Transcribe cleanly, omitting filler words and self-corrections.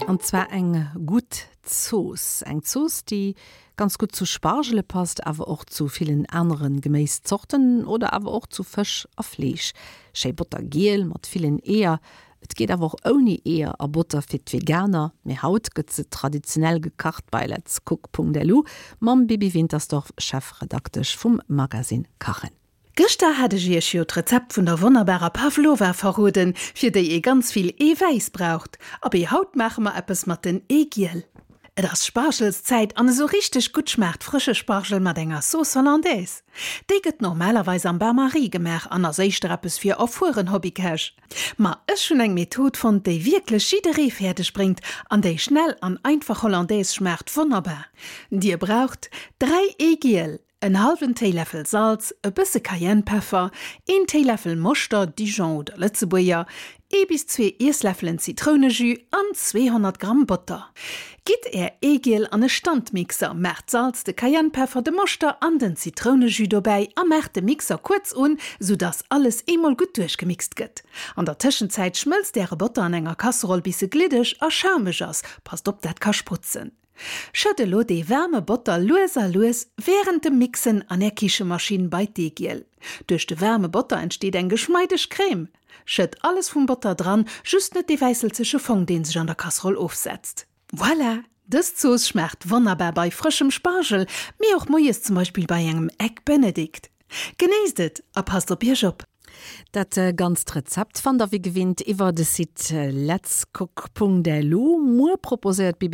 An zwar eng gutt Zooss. Eng Zooss, déi ganz gutt zu Spargele passt, awer och zu villen anere Geméiszorten oder awer och zu Fësch a Fleesch. Schéi bottergiel mat villen Eeër. Et geet awer och ouni Eeër a Botter fir d'Veganer. Mee haut gëtt se traditionell gekacht bei letscook.lu mam Bibi Wintersdorf, Chefredaktesch vum Magazine Kachen. Gëschter hat ech iech jo d'Rezept vun der wonnerbarer Pavlova verroden, fir déi ee ganz vill Eewäiss braucht. Abee, haut maache mer eppes mat den Eegiel. Et ass Spargelszäit an esou richteg gutt schmaacht frësche Spargel mat enger Sauce Hollandaise. Déi gëtt normalerweis am Bain-Marie gemaach an ass éischter eppes fir erfueren Hobbykäch. Ma ech hunn eng Method fonnt, déi wierklech jidderee fäerdeg bréngt an déi schnell an einfach Hollandaise schmaacht wonnerbar. Dir braucht 3 Eegiel, En hallwen Téiläffel Salz, e bësse Cayennepeffer, een Téiläffel Moschter, Dijon oder Lëtzebuerger, ee bis zwee Iessläffelen Zitrounejus an 200 Gramm Botter. Gitt är Eegiel an e Standmixer, maacht d'Salz, de Cayennepeffer, de Moschter an den Zitrounejus dobäi a maacht de Mixer kuerz un, sou dass alles eemol gutt duerchgemixt gëtt. An der Tëschenzäit schmëlzt äre Botter an enger Kasseroll bis e gliddeg a schaumeg ass, passt op dat ka sprutzen. Schëtt elo dee waarme Botter lues a lues wärend dem Mixen an är Kichemaschinn bei d'Eegiel. Duerch de waarme Botter entsteet eng geschmeideg Crème. Schëtt alles vum Botter dran, just net dee wäisselzege Fong deen sech an der Kasseroll ofsetzt. Voilà! Dës Zooss schmaacht wonnerbar bei frëschem Spargel, mee och moies zum Beispill bei engem Egg Benedict. Genéisst et a passt op iech op! Dat ganzt Rezept fannt der wéi gewinnt iwwer de Site letscook.lu. Muer proposéiert d'Bibi.